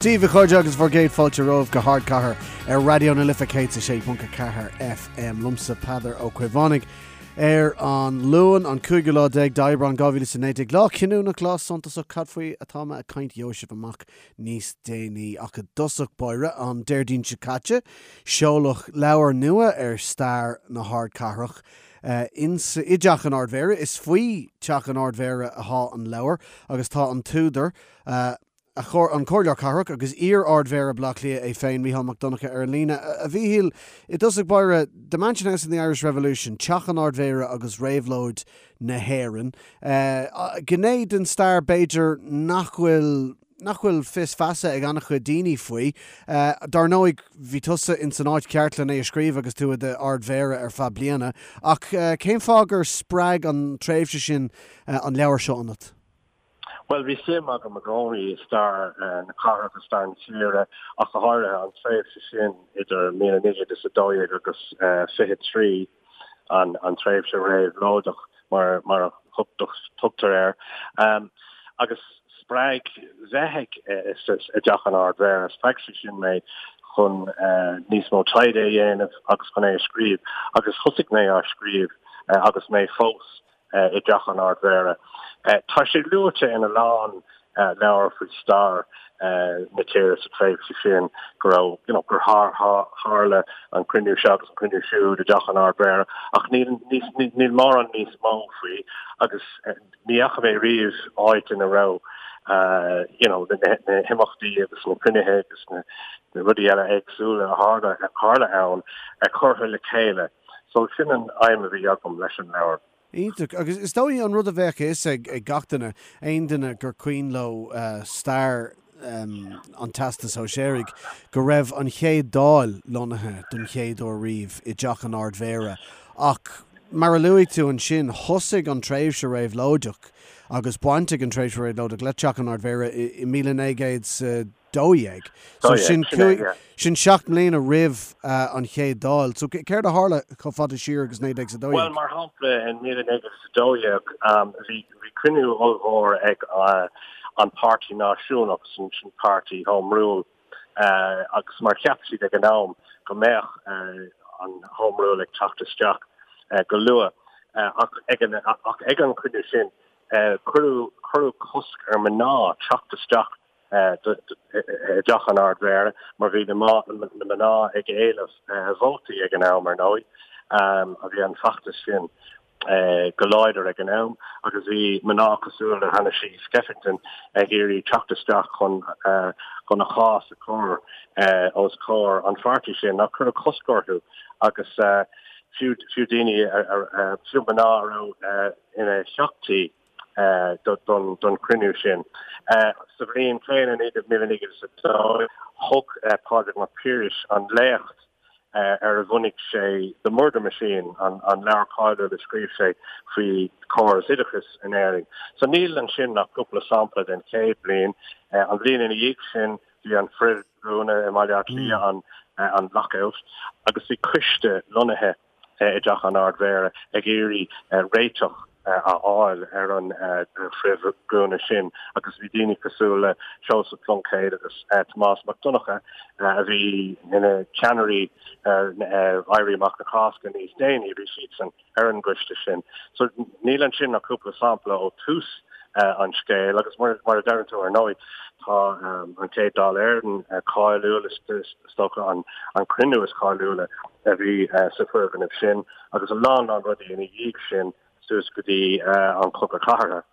Dia daoibh a chairde agus bhur gcéad fáilte romhaibh go hArdchathair ar Raidió na Life 106.4 FM. Liomsa Peadar Ó Caomhánaigh ar an Luan, an cúigiú lá déag d'Aibreán 2019. Lá cinniúnach, lá suntasach, cad faoi atá mé ag caint gheobhaidh sibh amach níos déanaí. Ach i dtosach báire, an Déardaoin seo caite, seoladh leabhar nua ar stair na hardchathrach insa, i dTeach an Ard-Mhéara. Is faoi Teach an Ard-Mhéara athá an leabhar agus tá an t-údar, an Comhairleoir Cathrach agus iar-Ard-Mhéara Bhaile Átha Cliath é féin, Mícheál Mac Donncha, ar an líne. A Mhíchíl, i dtosach báire, The Mansion House and the Irish Revolution, Teach an Ard-Mhéara agus Réabhlóid na hÉireann. Gné den stair, b'fhéidir, nach bhfuil nach bhfuil fios feasa ag an-chuid daoine faoi. Dar ndóigh, bhí tusa ins an áit cheart len é a scríobh agus tú i d'Ard-Mhéara ar feadh bliana. Ach cén fáth gur spreag an tréimhse sin an leabhar seo ionat? Bhuel, bhí suim agam i gcónaí i stair na cathrach agus stair na tíre, ach go háirithe an tréimhse sin idir 1912 agus 23, an tréimhse réabhlóideach mar a thugtar air. Agus spreag bheith i dTeach an Ard-Mhéara, spreag sé sin mé chun níos mó taighde a dhéanamh agus chun é a scríobh. Agus thosaigh mé á scríobh agus mé fós i dTeach an Ard-Mhéara. Tá sé luaite in a lán leabhar faoi stair na tíre sa tréimhse sin go raibh, you know, gur tharla an cruinniú seo agus an cruinniú siúd i dTeach an Ard-Mhéara ach níl, níl mórán níos mó faoi agus ní fhaca mé riamh áit ina raibh you know, na himeachtaí agus na cruinnithe agus na rudaí eile éagsúla a tharla ann curtha le chéile. So sin an aidhm a bhí agam leis an leabhar. Iontach. Agus is dóigh an rud a bheadh a fhios ag gach duine, aon duine gur cuimhin leo stair an Teastais Shóisearaigh, go raibh an chéad Dáil lonnaithe don chéad uair riamh i dTeach an Ard-Mhéara. Ach mar a luaigh tú ansin, thosaigh an tréimhse réabhlóideach agus baint ag an tréimhse réabhlóideach le Teach an Ard-Mhéara i 1900 12. So sin sin 7 mbliana roimh an chéad Dáil. So céard a tharla chomh fada siar agus 1912? Bhuel, mar shampla, in 1912 bhí bhí cruinniú ollmhór ag an Páirtí Náisiúnach, sin sin páirtí Home Rule, agus mar cheap siad ag an am go mbeadh an Home Rule ag teacht isteach go luath. Ach ag an ach ag an chruinniú sin cuireadh cuireadh cosc ar mná teacht isteach i dTeach an Ard-Mhéara mar bhí na mná ag éileamh vótaí ag an am, ar ndóigh. Bhí an feachtas sin go láidir ag an am agus bhí mná cosúil le Hanna Sheehy Skeffington ag iarraidh teacht isteach chun chun a chás a chur os comhair an pháirtí sin ach cuireadh cosc orthu agus fiú fiú daoine fiú mná a raibh ina theachtaí don chruinniú sin. Sa bhliain chéanna, 1902, thug Pádraig Mac Piarais an léacht ar a bhunaigh sé The Murder Machine, an leabhar cáiliúil a scríobh sé faoi chóras oideachais in Éirinn. So níl ansin ach cúpla sampla den chéad bhliain. An bhliain ina dhiaidh sin, bhí an frithdhúnadh i mBaile Átha Cliath, an lockout, agus bhí coiste lonnaithe i dTeach an Ard-Mhéara ag iarraidh réiteach a fháil ar an frithdhúnadh sin agus bhí daoine cosúil le Seosamh Pluincéad agus Tomás Mac Donncha a bhí ina cheannairí ar Éirí Amach na Cásca níos déanaí, bhí siadsan ar an gcoiste sin. So níl ansin ach cúpla sampla ó thús an scéil agus mar a deireann tú ar ndóigh tá an chéad Dáil Éireann cáiliúil, is dócha an cruinniú is cáiliúla a bhí sa foirgneamh sin agus a lán lán rudaí ina dhiaidh sin suas go dtí an Cogadh Cathartha.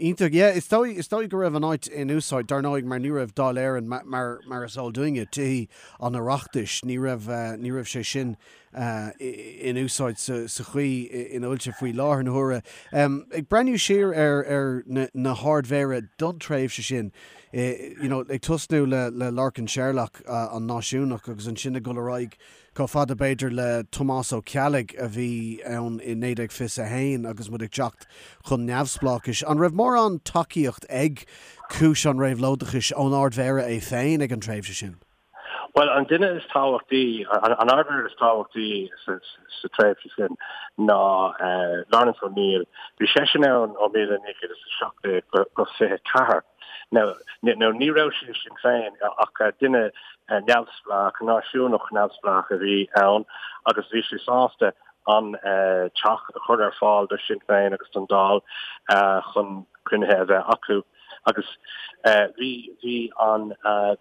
Iontach, yeah. Is dóigh, is dóigh go raibh an áit in úsáid, dar ndóigh, mar ní raibh Dáil Éireann, mar, mar is eol dúinne, Tithe an Oireachtais, ní raibh, ní raibh sé sin in úsáid sa, sa chaoi ina bhfuil sé faoi láthair na huaire. Ag breathnú siar ar, ar na, na hArd-Mhéara don tréimhse sin, you know, ag tosnú le, le Lorcan Sherlock, an náisiúnach, agus ansin ag dul ar aghaidh Chomh fada, b'fhéidir, le Tomás Ó Ceallaigh a bhí ann i 1921 agus muid ag teacht chun neamhspleáchais. An raibh mórán tacaíocht ag cúis an réabhlóideachais ón Ard-Mhéara é féin ag an tréimhse sin? Bhuel, an duine is tábhachtaí, an Ard-Mhéara is tábhachtaí sa tréimhse sin ná Laurence O'Neill. Bhí seisean ann ó 1917 go 24. Now, ní raibh sé i Sinn Féin ach duine neamhspleách, náisiúnach neamhspleách a bhí ann agus bhí sé sásta an teach a chur ar fáil do Shinn Féin agus don Dáil chun cruinnithe a bheith acu. Agus bhí, bhí an,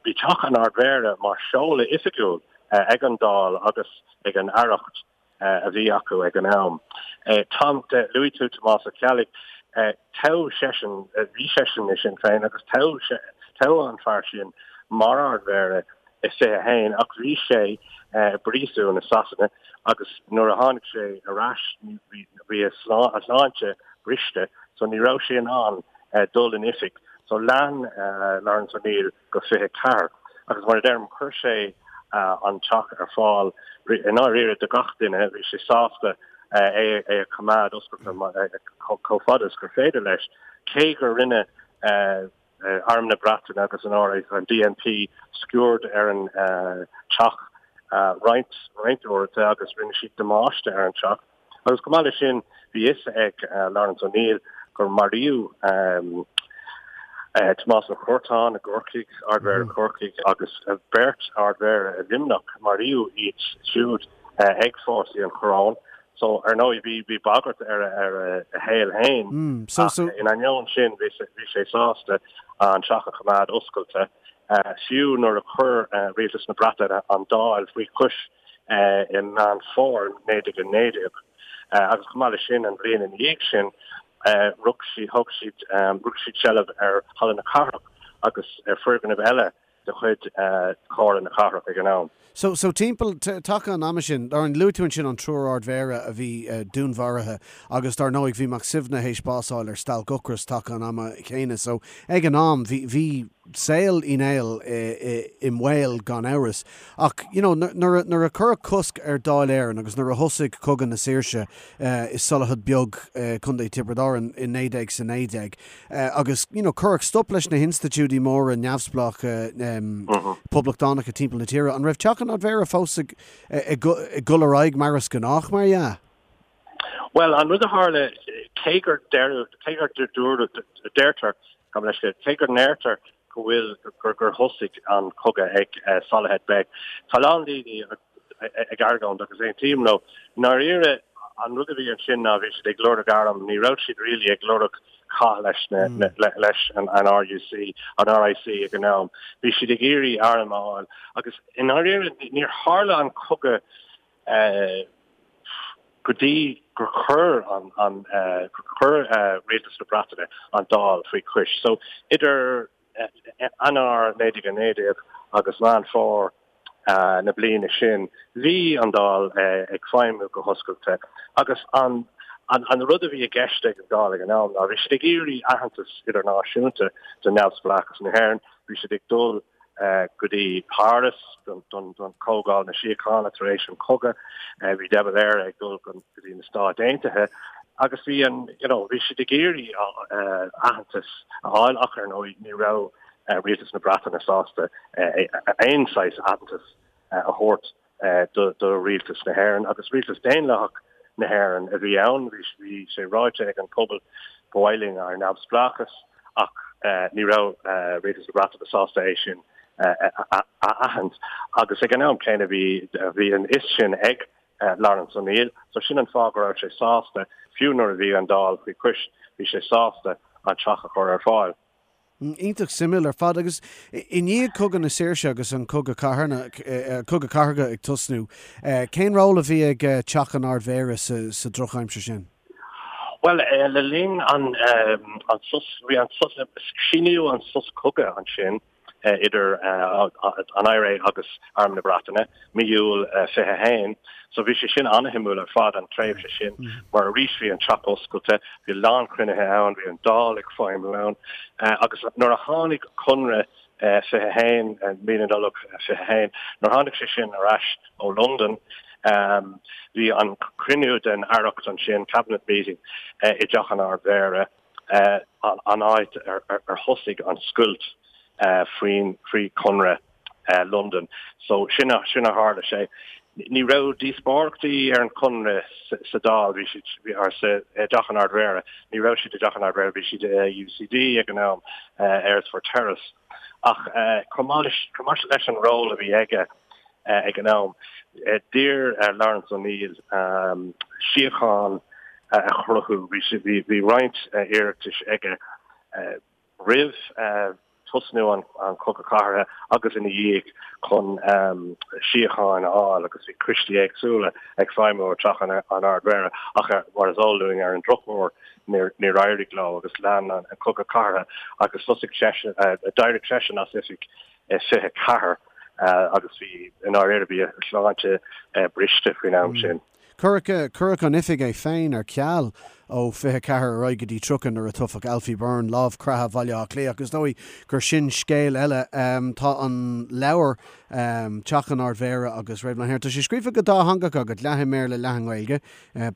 bhí teach an Ard-Mhéara mar seoladh oifigiúil ag an Dáil agus ag an Aireacht a bhí acu ag an am. Tom, luaigh tú Tomás Ó Ceallaigh, toghadh seisean, bhí seisean i Sinn Féin agus toghadh, toghadh an fear sin mar Ard-Mhéara i 21 ach bhí sé i bpríosún i Sasana agus nuair a tháinig sé ar ais bhí a shláinte briste so ní raibh sé in ann dul in oifig. So lean Laurence O'Neill go 24 agus mar a deirim chuir sé an teach ar fáil i ndáiríre do gach duine, bhí sé sásta é a choimeád oscailte chomh fada is gur féidir leis, cé gur rinne Arm na Breataine agus an RA, an DMP sciuird ar an teach roinnt roinnt uaireanta agus rinne siad damáiste ar an teach. Agus chomh maith leis sin, bhí fhios ag Laurence O'Neill gur maraíodh Tomás Ó Curtáin i gCorcaigh, Ard-Mhéara Chorcaigh, agus beirt Ard-Mhéara i Luimneach, maraíodh iad siúd ag fórsaí an Choróin. So, ar ndóigh, bhí bhí bagairt ar ar a shaol féin. Ach in ainneoin sin, bhí bhí sé sásta an teach a choimeád oscailte, fiú nuair a chuir Rialtas na Breataine an Dáil faoi chois i Meán Fómhair 1919. Agus chomh maith leis sin, an bhliain ina dhiaidh sin, rug siad, thóg siad, rug siad seilbh ar Halla na Cathrach agus ar foirgnimh eile de chuid Chomhairle na Cathrach ag an am. So, so timpeall taca an ama sin, dar, luaigh tú ansin an triúr Ard-Mhéara a bhí dúnmharaithe agus dar ndóigh bhí Mac Suibhne théis bás a fháil ar stailc ocrais taca an ama chéanna. So, ag an am bhí, bhí saol Uí Néill i mbaol gan amhras. Ach, you know, nuair a, nuair a cuireadh cosc ar Dáil Éireann agus nuair a thosaigh Cogadh na Saoirse i Solohead Beag, Contae Tiobraid Árann i 1919, Agus, you know, cuireadh stop leis na hinstitiúidí móra neamhspleácha poblachtánacha timpeall na tíre. An raibh Teach an Ard-Mhéara fós ag dul ar aghaidh mar is gnách, mar dhea? Bhuel, an rud a tharla, cé gur deireadh, cé gur dúradh, deirtear, gabh mo leithscéal, cé go ndeirtear go bhfuil, gur, gur thosaigh an cogadh ag Solohead Beg, tá a lán daoine ag argóint agus aontaím leo. I ndáiríre, an rud a bhí ansin ná bhí siad ag lorg arm, ní raibh siad really ag lorg cath leis na, leis an RUC, an RIC ag an am. Bhí siad ag iarraidh arm a fháil agus i ndáiríre níor tharla an cogadh go dtí gur chuir an, an, gur chuir Rialtas na Breataine an Dáil faoi chois. So idir Eanáir 1919 agus Meán Fómhair na bliana sin, bhí an Dáil ag feidhmiú go hoscailte agus an an rud a bhí i gceist ag an Dáil ag an am ná bhí siad ag iarraidh aitheantas idirnáisiúnta do neamhspleáchas na hÉireann, bhí siad ag dul go dtí Páras don Chomhdháil na Síochána tar éis an chogaidh, bhí de Valera ag dul go dtí na Stáit Aontaithe agus bhí an, you know, bhí siad ag iarraidh aitheantas a fháil ach ar ndóigh ní raibh rialtas na Breataine sásta aon saghas aitheantas a thabhairt do rialtas na hÉireann agus rialtas daonlathach na hÉireann a bhí ann. Bhí sé ráite ag an pobal ba mhaith linn ár neamhspleáchas ach ní raibh rialtas na Breataine sásta é sin a aithint agus ag an am céanna bhí bhí an fhios sin ag Laurence O'Neill so sin an fáth go raibh sé sásta fiú nuair a bhí an Dáil faoi chois bhí sé sásta an teach a chur ar fáil. Iontach suimiúil ar fad. Agus i ndiaidh Cogadh na Saoirse agus an Cogadh Cathartha, Cogadh Cathartha ag tosnú, cén ról a bhí ag Teach an Ard-Mhéara sa drochaimsir sin? Bhuel, le linn an sos, bhí an sos, síníodh an sos cogaidh ansin idir an IRA agus Arm na Breataine, mí Iúil 21. So bhí sé sin an-shuimiúil ar fad, an tréimhse sin, mar arís bhí an teach oscailte, bhí a lán cruinnithe ann, bhí an Dáil ag feidhmiú ann, agus nuair a tháinig Conradh 21, mí na Nollag 21, nuair a tháinig sé sin ar ais ó Londain, bhí an cruinniú den Aireacht ansin, Cabinet Meeting, i dTeach an Ard-Mhéara, an áit ar thosaigh an scoilt faoin, faoi Chonradh Londain. So sin a, sin a tharla sé. Ní raibh díospóireachtaí ar an Chonradh sa Dáil, bhí siad or sa dTeach an Ard-Mhéara, ní raibh siad i dTeach an Ard-Mhéara, bhí siad i UCD ag an am, Earlsfort Terrace. Ach chomh maith leis an ról a bhí aige ag an am, d'iarr Laurence O'Neill síocháin a chruthú. Bhí roinnt iarratais aige roimh tosnú an Chogadh Cathartha agus ina dhiaidh chun síocháin a fháil agus bhí coistí éagsúla ag feidhmiú i dTeach an Ard-Mhéara ach mar is eol dúinn ar an drochuair níor éirigh leo agus lean an Cogadh Cathartha agus thosaigh seisean, d'éirigh seisean as oifig i 24 agus bhí, i ndáiríre, bhí a shláinte briste faoin am sin. Cuireadh an oifig é féin ar ceal ó 24 ar aghaidh go dtí 30 nuair a toghadh Alfie Byrne, Lámh Creatha Bhaile Átha Cliath. Ach is dóigh gur sin scéal eile. Tá an leabhar, Teach an Ard-Mhéara agus Réabhlóid na hÉireann, tá sé scríofa go dátheangach agat, leath i mBéarla, leath i nGaeilge.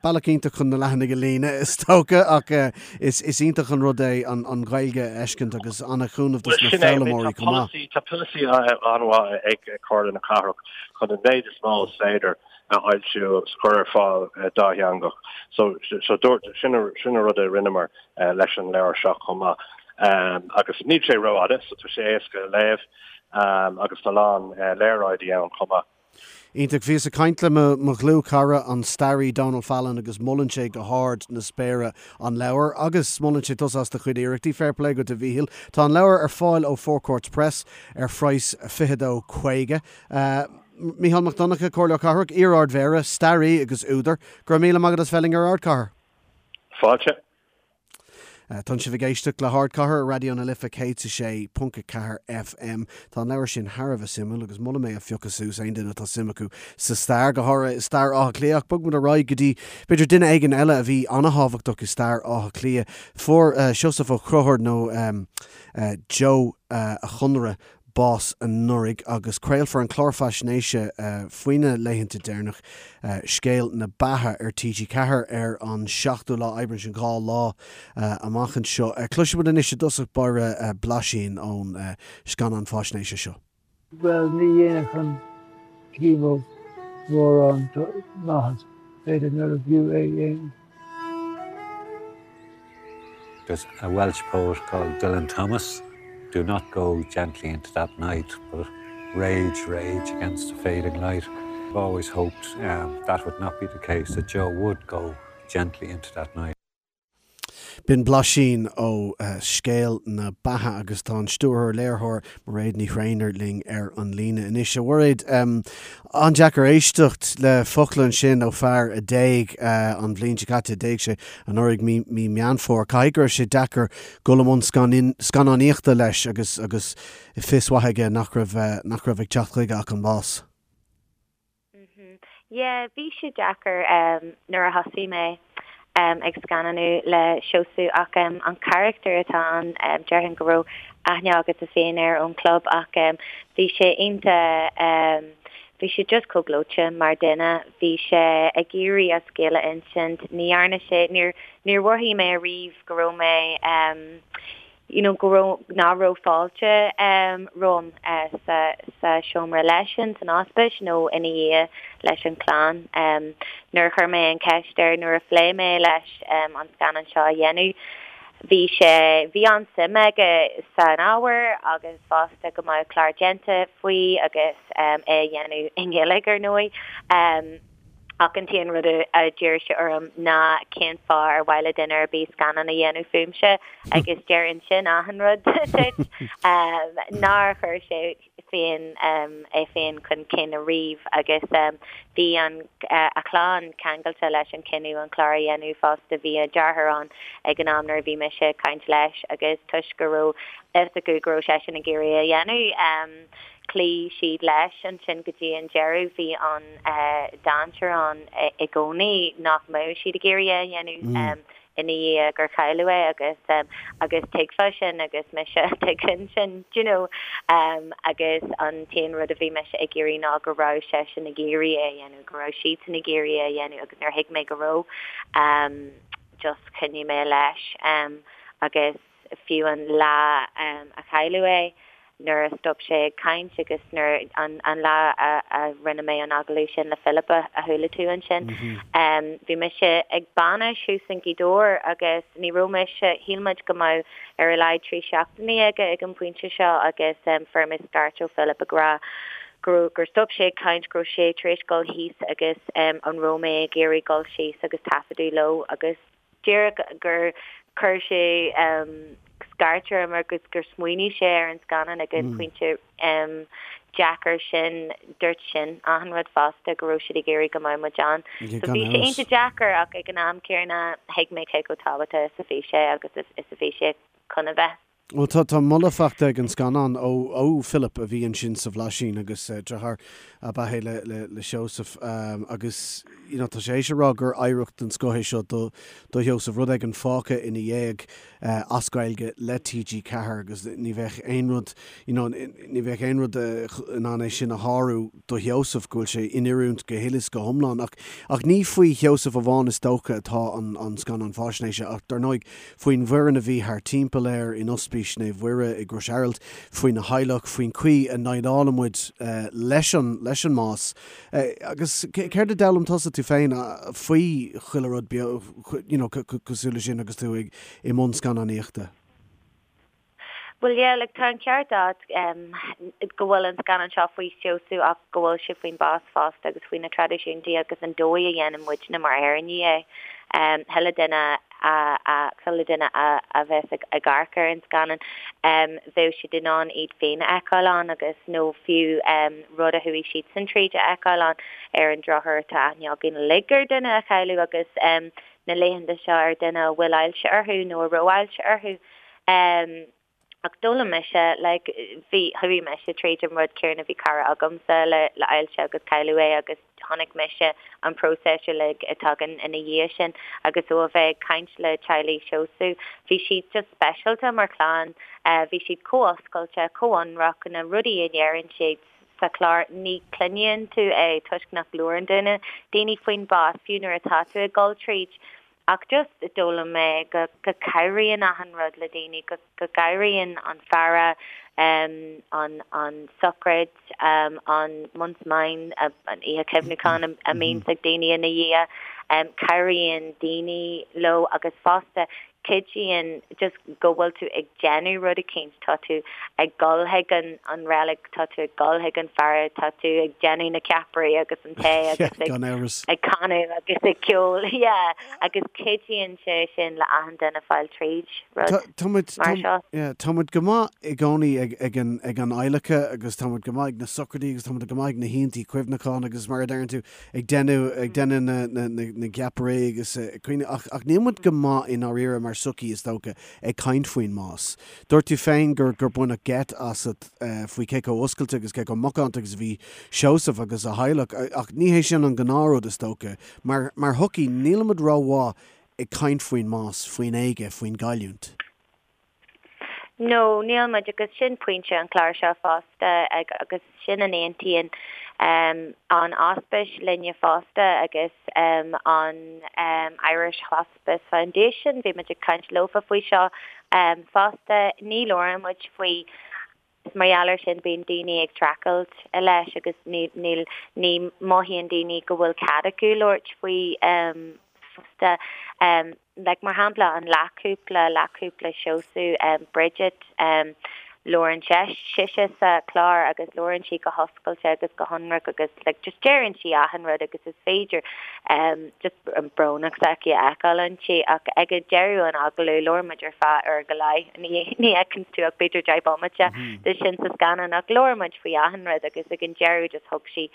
Bealach iontach chun na leathanaigh a líonadh, is dócha, ach is iontach an rud é an Ghaeilge a fheiscint agus an-chúnamh dos na foghlaimeoirí chomh maith. Tá polasaí an-mhaith ag Comhairle na Cathrach chun an méid is mó is féidir a fhoilsiú agus a chur ar fáil dátheangach. So dúirt, sin an rud a rinneamar leis an leabhar seo chomh maith. Agus níl sé rófhada, so tá sé éasca a léamh agus tá a lán léaráidí ann chomh maith. Iontach. Bhíos ag caint le mo dhlúthchara, an staraí Donal Fallon agus molann sé go hard na spéire an leabhar agus molann sé tusa as do chuid iarrachtaí. Fair play duit a Mhíchíl. Tá an leabhar ar fáil ó Four Courts Press ar phraghas 22.50. Mícheál Mac Donncha, Comhairleoir Cathrach, iar-Ard-Mhéara, staraí agus údar, go raibh míle maith agat as bheith linn ar Ardchathair. Fáilte. Tánn sibh ag éisteacht le hArdchathair ar Raidió na Life 106.4 FM. Tá an leabhar sin thar a bheith suimiúil agus molaim é a phiocadh suas aon duine atá suim acu sa stair, go háirithe i stair Átha Cliath. Ach bogfaidh muid ar aghaidh go dtí, b'fhéidir, duine éigin eile a bhí an-thábhachtach i stair Átha Cliath. Fuair Seosamh Ó Conchúir, nó Joe a' Chonaire, bás anuraidh agus craolfar an clár faisnéise faoina laethanta deireanach, Scéal na Beatha, ar TG4 ar an 7ú lá Aibreán, sin 2 lá amach anseo. Cloisfidh muid anois i dtosach báire blaisín ón scannán faisnéise seo. Bhuel, ní dhéanfadh an chemo mórán maitheas, b'fhéidir nárbh fhiú é a dhéanamh. There's a Welsh poet called Dylan Thomas, do not go gently into that night, but rage, rage against the fading light. I've always hoped um, that would not be the case, that Joe would go gently into that night. B'in blaisín ó Scéal na Beatha agus tá an stiúrthóir léiritheoir Mairéad Ní Thréinir linn ar an líne anois. A Mhairéad, an-deacair éisteacht le focla ansin ó fear a d'éag an bhliain seo caite, d'éag sé anuraidh mí mí Meán Fómhair. Caithfidh go raibh sé deacair dul i mbun scannánaíochta leis agus agus fios mhaith aige nach raibh nach raibh ag teacht chuige ach an bás. Yeah, bhí sé deacair nuair a thosaigh mé ag scannánú le Seosamh ach an carachtar atá ann, déarfainn go raibh aithne agatsa féin air ón chlub ach bhí sé iontach, bhí sé just chomh gleoite mar duine, bhí sé ag iarraidh a scéal a insint, ní dhearna sé, níor, níor mhothaigh mé ariamh go raibh mé, you know, go raibh, nach raibh fáilte romham sa, sa seomra leisean san ospís nó ina dhiaidh leis an chlann. Nuair a chuir mé an cheist air, nuair a phléigh mé leis an scannán seo a dhéanamh, bhí sé, bhí an-suim aige san ábhar agus fosta go mbeadh clár déanta faoi agus é a dhéanamh i nGaeilge ar ndóigh. Ach an t-aon rud a d'iarr sé orm ná cén fáth ar mhaith le duine ar bith scannán a dhéanamh fúmse agus deireann sin achan rud duit. Nár chuir sé féin é féin chun cinn ariamh agus bhí an a chlann ceangailte leis an cinneadh an clár a dhéanamh fosta. Bhí a deartháir ann ag an am nuair a bhí mise ag caint leis agus toisc go raibh fhios acu go raibh seisean ag iarraidh é a dhéanamh, Chloígh siad leis ansin go dtí an deireadh. Bhí an dainséar ann i gcónaí nach mbeadh siad ag iarraidh é a dhéanamh ina dhiaidh gur cailleadh é agus agus tuigfeá sin agus mise tuigfinn sin do you know agus an t-aon rud a bhí mise ag iarraidh ná go raibh seisean ag iarraidh é a dhéanamh, go raibh siadsan ag iarraidh é a dhéanamh agus nuair a thuig mé go raibh just choinnigh mé leis agus fiú an lá a cailleadh é. nuair a stop sé ag caint agus nuair an an lá a a rinne mé an agallamh sin le Philip a a chuala tú ansin bhí mise ag bainis thuas in Gaoth Dobhair agus ní raibh mise shíl muid go mbeadh ar a laghad 3 seachtainí aige ag an bpointe seo agus fuair mé scairt ó Philip ag rá go raibh gur stop sé ag caint go raibh sé tar éis dul thíos agus an raibh mé ag iarraidh dul síos agus taifeadadh leo agus díreach gur chuir sé scairt orm agus gur smaoinigh sé ar an scannán ag an bpointe deacair sin, dúirt sin achan rud fosta, go raibh siad ag iarraidh go mbeadh muid ann. So bhí sé iontach deacair ach ag an am céanna thuig mé cé chomh tábhachtach is a bhí sé agus is a bhí sé chun a bheith. Bhuel, tá, tá moladh faighte ag an scannán ó, ó Philip a bhí ansin sa Bhlaisín agus deartháir ab ea é le, le, le Seosamh agus you know tá sé théis a rá gur oidhreacht den scoth é seo do, do Sheosamh, rud éigin fágtha ina dhiaidh as Gaeilge le TG4 agus ní bheadh aon rud, you know, ní bheadh aon rud in ann é sin a shárú do Sheosamh, go bhfuil sé in oiriúint go huile is go hiomlán. Ach, ach ní faoi Sheosamh amháin is dócha atá an, an scannán faisnéise ach dar ndóigh faoin bhfoireann a bhí thar timpeall air in Ospís Naomh Mhuire i gCrois Araild, faoina theaghlach, faoin chaoi a ndéileálann muid leis an leis an mbás. Agus céard a d'fhoghlaim tusa tú féin faoi chuile rud beo you know cosúil leis sin agus tú ag i mbun scannánaíochta? Bhuel yeah, like tá an ceart agat go bhfuil an scannán seo faoi Sheosamh ach go bhfuil sé faoin bás fosta agus faoi na traidisiúntaí agus an dóigh a dhéanann muidne mar Éireannaigh é. Chuile duine a chuile duine a a bheas ag ag amharc ar an scannán bheadh siad in ann iad féin a fheiceáil ann agus nó fiú rud a chuaigh siadsan tríd a fheiceáil ann. Ar an drochuair tá aithne againn uilig ar duine a cailleadh agus na laethanta seo ar duine a bhfuil ailse orthu nó a raibh ailse orthu. Ach d'fhoghlaim mise, like, bhí, chuaigh mise tríd an rud céanna, bhí cara agamsa le, le ailse agus cailleadh é agus chonaic mise an próiseas uilig a tagann ina dhiaidh sin agus ó a bheith ag caint le teaghlaigh Sheosaimh, bhí siad just speisialta mar chlann, bhí siad chomh oscailte, chomh ionraic, na rudaí a deireann siad sa chlár, ní chluineann tú é toisc nach labhrann duine, daoine faoin bás, fiú nuair atá tú ag dul tríd. Ach just d'fhoghlaim mé go go cabhraíonn achan rud le daoine, go go gcabhraíonn an faire, an an sochraid, an month's mind, an oíche chuimhneacháin a mbíonns ag daoine ina dhiaidh, cabhraíonn daoine leo agus fosta cuidíonn just go bhfuil tú ag déanamh rud eicínt, tá tú ag dul chuig an an reilig, tá tú ag dul chuig an faire, tá tú ag déanamh na ceapairí agus an tae agus ag ag canadh agus ag ceol, yeah, agus cuidíonn sé sin le achan duine fáil tríd rud Tá muid mar seo. Yeah, tá muid go maith i gcónaí ag ag an ag an adhlacadh agus tá muid go maith ag na sochraidí agus tá muid go maith ag na hoícheantaí cuimhneacháin agus mar a deireann tú ag déanamh ag déanamh na na na na gceapairí agus ag caoineadh ach ach níl muid go maith i ndáiríre mar sochaí is dócha ag caint faoin mbás. Dúirt tú féin gur gur baineadh geit asat faoi cé chomh oscailte agus cé chomh macánta agus a bhí Seosamh agus a theaghlach ach ní hé sin an gnáthrud is dócha. Mar mar shochaí nílimid rómhaith ag caint faoin mbás, faoin éaga, faoin gcailliúint. No, níl muid, agus sin pointe an chláir seo fosta, agus sin a n-aontaíonn an Ospís linne fosta agus an Irish Hospice Foundation, bhí muid ag caint leofa faoi seo fosta, ní labhrann muid faoi. Is mar gheall air sin bíonn daoine ag streachailt leis agus níl, ní mothaíonn daoine go bhfuil cead acu labhairt faoi fosta. Like mar shampla an leathchúpla, leathchúpla Seosamh, Bridget, labhrann sise sa chlár agus labhrann sí go hoscailte agus go hionraic agus like just deireann sí achan rud agus is féidir just an brónacht s'aici a fheiceáil inti ach ag deireadh an agallaimh labhair muid ar feadh uair go leith, ní fheiceann tú ach b'fhéidir 10 bomaite de sin sa scannán ach labhair muid faoi achan rud agus ag an deireadh just thug sí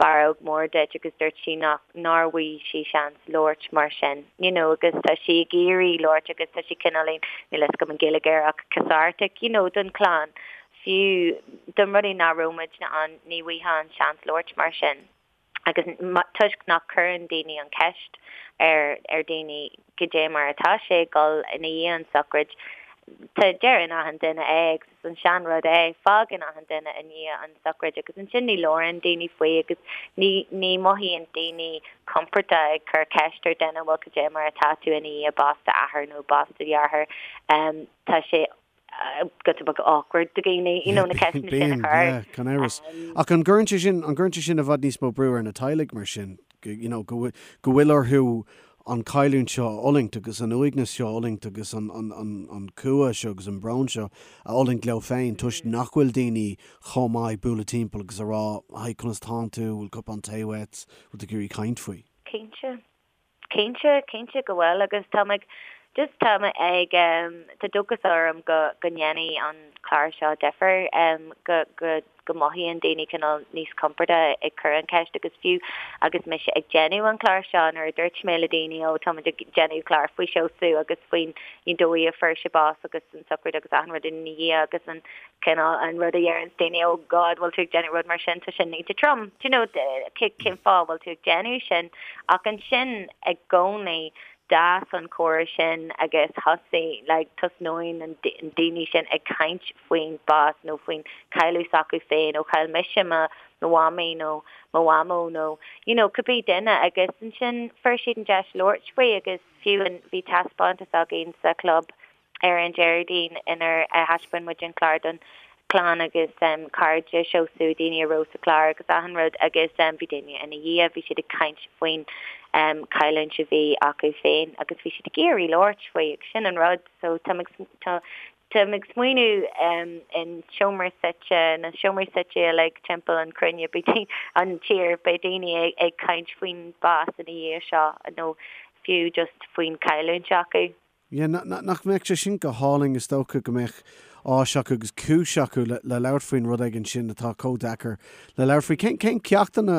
barróg mór duit agus dúirt sí nach nár bhfaigh sí seans labhairt mar sin you know agus tá sí ag iarraidh labhairt agus tá sí cineáilín níl a fhios agam an Ghaeilge air ach cathartic you know don chlann fiú don rudaí nach raibh muidne ann ní bhfaighfeá an seans labhairt mar sin. agus toisc nach cuireann daoine an cheist ar ar daoine goidé mar atá sé ag dul ina dhiaidh an sochraid, tá deireann achan duine é agus is an sean rud é, fágann achan duine i ndiaidh an sochraid agus ansin ní labhrann daoine faoi agus ní ní mothaíonn daoine compordach ag cur ceist ar duine bhuel goidé mar atá tú ina dhiaidh bás d'athar nó bás do dheartháir tá sé. giota beag awkward do dhaoine, you know, na ceisteanna sin a Bíonn, chur. yeah, gan amhras. Ach an gcuireann sé sin, an gcuireann sé sin i bhfad níos mó brú ar na teaghlaigh mar sin, you know, go bhfuil, go bhfuil orthu an chailliúint seo a fhulaingt agus an uaigneas seo a fhulaingt agus an, an, an, an cumha seo agus an brón seo a fhulaingt leo féin toisc nach bhfuil daoine chomh maith bualadh timpeall agus a rá, Hi, conas tánn tú, bhfuil cupán tae uait, bhfuil tú ag iarraidh caint faoi? Cinnte. Cinnte, cinnte go bhfuil agus tá mé just tá mé ag tá dóchas orm go go ndéanfaidh an clár seo difear go go go mothaíonn daoine cineál níos compordaí ag cur an cheist agus fiú agus mise ag déanamh an clár seo nuair a dúirt mé le daoine ó tá muid ag déanamh clár faoi Seosamh agus faoin dóigh a fuair sé bás agus an sochraid agus achan rud ina dhiaidh agus an cineál an rud a dheireanns daoine oh God bhfuil tú ag déanamh rud mar sin tá sin iontach trom do you know cén fáth bhfuil tú ag déanamh sin ach ansin i gcónaí d'fhás an comhrá sin agus thosaigh like tosnaíonn an daoine sin ag caint faoin bás nó faoin cailleadh s'acu féin ó chaill mise mo mo mhamaí nó mo mhamó nó you know cibé duine agus ansin fuair siad an deis labhairt faoi agus fiú an bhí taispeántas againn sa chlub ar an Déardaoin inar thaispeáin muid an clár don chlann agus cairde Seosamh, daoine a raibh sa chlár agus achan rud agus bhí daoine ina dhiaidh, bhí siad ag caint faoin chailliúint a bhí acu féin agus bhí siad ag iarraidh labhairt faoi agus sin an rud so táim ag táim ag smaoineamh in seomra suite, na seomraí suite uilig timpeall an chruinne, beidh an tír, beidh daoine ag caint faoin bás ina dhiaidh seo nó fiú just faoin chailliúint acu. Yeah, nach mbeadh sé sin go hálainn, is dócha go mbeadh áis acu agus cúis acu le labhairt faoin rud éigin sin atá chomh deacair le labhairt faoi. Cén, cén ceachtanna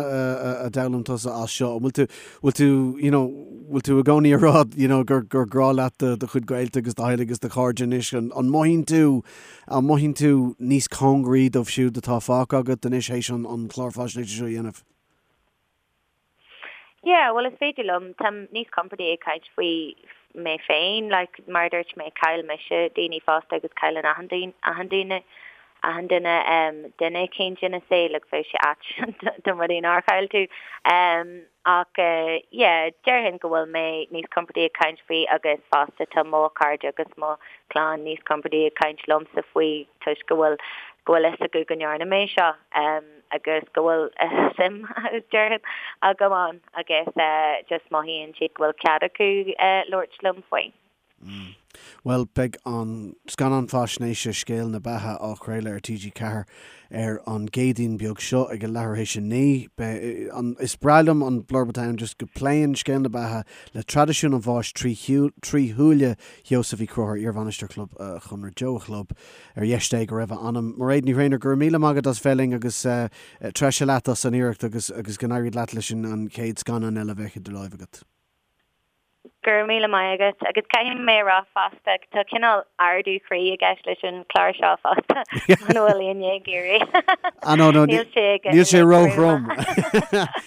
a d'fhoghlaim tusa as seo? An bhfuil tú, bhfuil tú, you know, bhfuil tú i gcónaí ag rá, you know, gur, gur grá leat do, do chuid gaolta agus do theaghlaigh agus do chairde anois? An, an mothaíonn tú, an mothaíonn tú níos cóngaraí dóibh siúd atá fágtha agat anois théis an, an clár faisnéise seo a dhéanamh? Yeah, bhuel is féidir liom, táim níos compordaí ag caint faoi mé féin, like mar a dúirt mé, chaill mise daoine fosta agus cailleann achan duine, achan duine, achan duine em duine eicínt ina saol like bheadh sé ait dá mba rud é nár chaill tú. Em ach eh yeah, déarfainn go bhfuil mé níos compordaí ag caint faoi agus fosta tá mo chairde agus mo chlann níos compordaí ag caint liomsa faoi toisc go bhfuil go bhfuil fhios acu go ndearna mé seo. Em. agus go bhfuil suim, déarfainn, agam ann agus just mothaíonn siad go bhfuil cead acu labhairt liom faoi. Bhuel, beidh an scannán faisnéise Scéal na Beatha á chraoladh ar TG4 ar an gCéadaoin beag seo ag a leathuair théis a 9. Beidh an, is breá liom an blurb atá ann, just go pléann Scéal na Beatha le traidisiún an bháis trí shúile Sheosaimh Uí Chonchúir, iarbhainisteoir Chlub Chonradh Joe a Chlub. Ar dheis Dé go raibh a anam. Mairéad Ní Thréinir, go raibh míle maith agat as bheith linn agus treise leat as an iarracht agus agus go n-éirí leat leis an chéad scannán eile a bheidh idir láimh agat. Go raibh míle maith agat agus caithfidh mé a rá fosta tá cineál ardú croí i gceist leis an chlár seo fosta muna bhfuil éinne ag iarraidh. Ah no no níl sé níl sé ró-throm.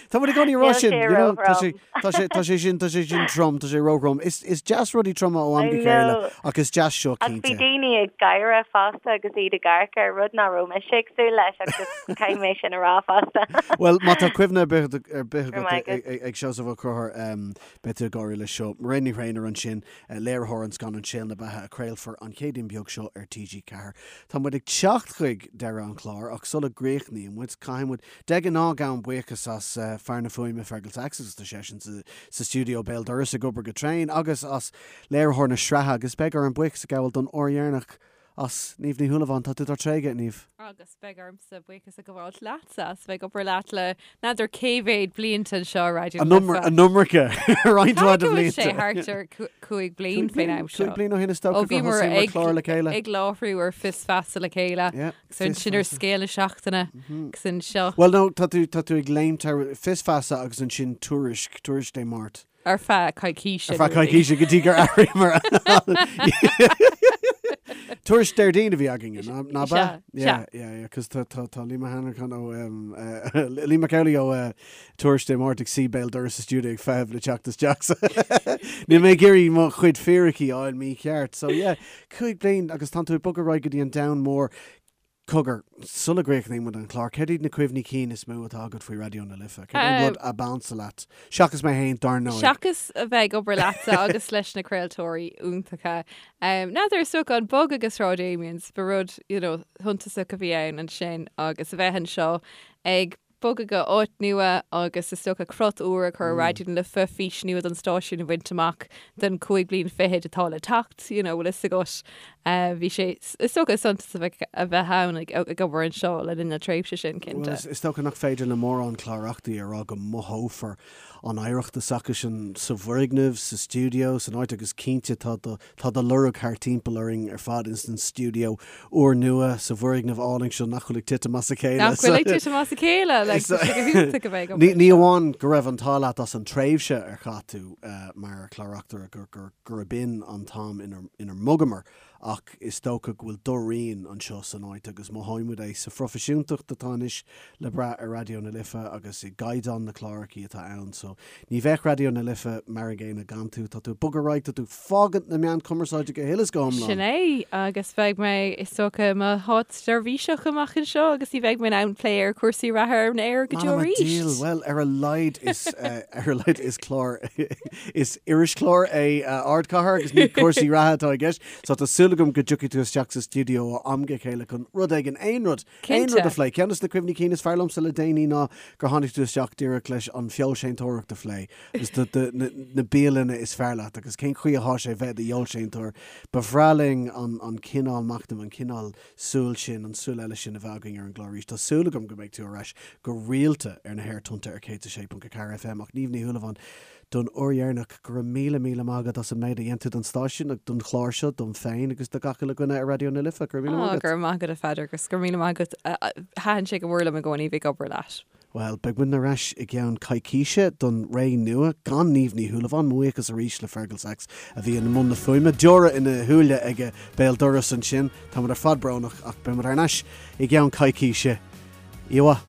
Tá muid i gcónaí ag rá sin, you know, tá sé Tá sé, tá sé sin, tá sé sin trom, tá sé róthrom. Is, is deas rudaí troma ó am go chéile ach is deas seo, cinnte. Ach bhí daoine ag gáire fosta agus iad ag amharc air, rud nach raibh mise ag súil leis ach just caithfidh mé sin a rá fosta. Bhuel, má tá cuimhne ar bith, ar bith agat ag Seosamh Ó Conchúir, beidh tú ag gáire leis seo. Mairéad Ní Thréinir ansin, léiritheoir an scannáin Scéal na Beatha a craolfar an Chéadaoin beag seo ar TG4. Tá muid ag teacht chuig deireadh an chláir ach sula gcríochnaíonn muid, caithfidh muid De ghnáth, gabhaim buíochas as fear na fuaime Fergal Sachs agus tá seisean sa stiúideo béal dorais ag obair go tréan, agus as léiritheoir na sraithe agus beidh orm buíochas a ghabháil don uair dheireanach as Niamh Ní Shúilleabháin. Tá tú dár dtréigeadh, a Niamh. Agus beidh ormsa buíochas a ghabháil leatsa as bheith ag obair leat le n'fheadar cé mhéad blianta anseo ar Raidió na Life. An iomarca, roinnt mhaith de bhlianta. Caithfidh go bhfuil sé thart ar chúig bliain faoin am seo. Cúig bliain ó shin is dócha gur thosaigh muid clár le chéile. Ag láithriú ar Fios Feasa le chéile. Agus ansin ar Scéal na Seachtaine agus anseo. Bhuel no, tá tú, tá tú ag léimt thar Fios Feasa agus ansin Tuairisc, Tuairisc Dé Máirt. Ar feadh coicíse. Ar feadh coicíse go dtí gur athraíomar. Tuairisc Déardaoin a bhí againn, ná bea? Sea, Yeah, yeah, yeah, cos tá, tá, tá Liam Hanrahan ó, Liam Mac Amhlaigh ó Tuairisc Dé Máirt ag suí béal dorais sa stiúideo ag feitheamh le teacht isteach. So níl mé ag iarraidh mo chuid fíricí a fháil mícheart. So yeah, 5 bliain agus tánn tú ag bogadh ar aghaidh go dtí an domhan mór. Cogar, sula gcríochnaíonn muid an clár, céard iad na cuimhní cinn is mó atá agat faoi Raidió na Life? Céard é an rud ab ansa leat? Seachas mé féin, dar ndóigh. Seachas a bheith ag obair leatsa agus leis na craoltóirí iontacha. N'fheadar, is dócha an bogadh go Sráid Amiens, ba rud, you know, shuntasach a bhí ann ansin agus a bheith anseo ag bogadh go áit nua agus is dócha crot úr a chur ar Raidió na Life, fís nua don stáisiún a bhaint amach don chúig bliain fichead atá le teacht, you know, bhfuil fhios agat. Bhí sé, is dócha, suntasach a bheith ann ag obair anseo le linn na tréimhse sin, cinnte. Bhuel, is dócha nach féidir le mórán clár-reachtairí a rá go mothófar an oidhreacht s'acusan sa bhfoirgneamh, sa stiúideo, san áit agus cinnte tá do Tá do lorg thart timpeall orainn ar fad ins an stiúideo úrnua sa bhfoirgneamh álainn seo nach bhfuil ag titim as a chéile. Nach bhfuil ag titim as a chéile, like, tá sé go hiontach a bheith ag obair Ní amháin go raibh an t-ádh leat as an tréimhse ar chaith tú mar chlár-reachtaire gurb in an t-am inar mbogamar ach is dócha go bhfuil do rian anseo san áit agus mothaímid é sa phroifisiúntacht atá anois le brath ar Raidió na Life agus i gcaighdeán na clárachaí atá ann. So ní bheadh Raidió na Life mar an gcéanna gan tú. Tá tú ag bogadh ar aghaidh, tá tú ag fágaint na meán cumarsáide go huile is go hiomlán. Sin é, agus beidh mé, is dócha, i mo shátseirbhíseach amach anseo agus ní bheidh mé in ann plé ar chúrsaí reatha ar an aer go deo M'anam a arís. diabhal, bhuel, ar a laghad is, ar a laghad is clár, is irischlár é Ardchathair agus ní cúrsaí reatha atá i gceist. So tá súil agam go dtiocfaidh tú isteach sa stiúideo ó am go chéile chun rud éigin, aon rud, aon rud a phlé. Ceann de na cuimhní cinn is fearr liomsa le déanaí ná gur tháinig tú isteach díreach leis an fheoilséantóireacht a phlé agus do, do, na, na bialanna is fearr leat agus cén chaoi atá sé bheith i do fheoilséantóir. Ba bhreá linn an, an cineál machnaimh, an cineál súil sin, an súil eile sin a bheith againn ar an gclár arís. Tá súil agam go mbeidh tú ar ais go rialta ar na haerthonnta ar 106.4 FM ach Niamh Ní Shúilleabháin, don uair dheireanach, go raibh míle míle maith agat as an méid a dhein tú don stáisiún agus don chlár seo, dom féin agus do gach uile dhuine ar Raidió na Life. Go raibh míle maith agat. Go raibh maith agat a Pheadair agus go raibh míle maith agat. Thaitin sé go mór liom i gcónaí bheith ag obair leat. Bhuel, beidh muid ar ais i gceann coicíse don ré nua gan Niamh Ní Shúilleabháin. Mo bhuíochas arís le Fergal Sachs a bhí i mbun na fuaime. Deora ina shúile aige béal dorais ansin. Tá muid ar fad brónach ach beidh muid thar n-ais i gceann coicíse. Oíche mhaith.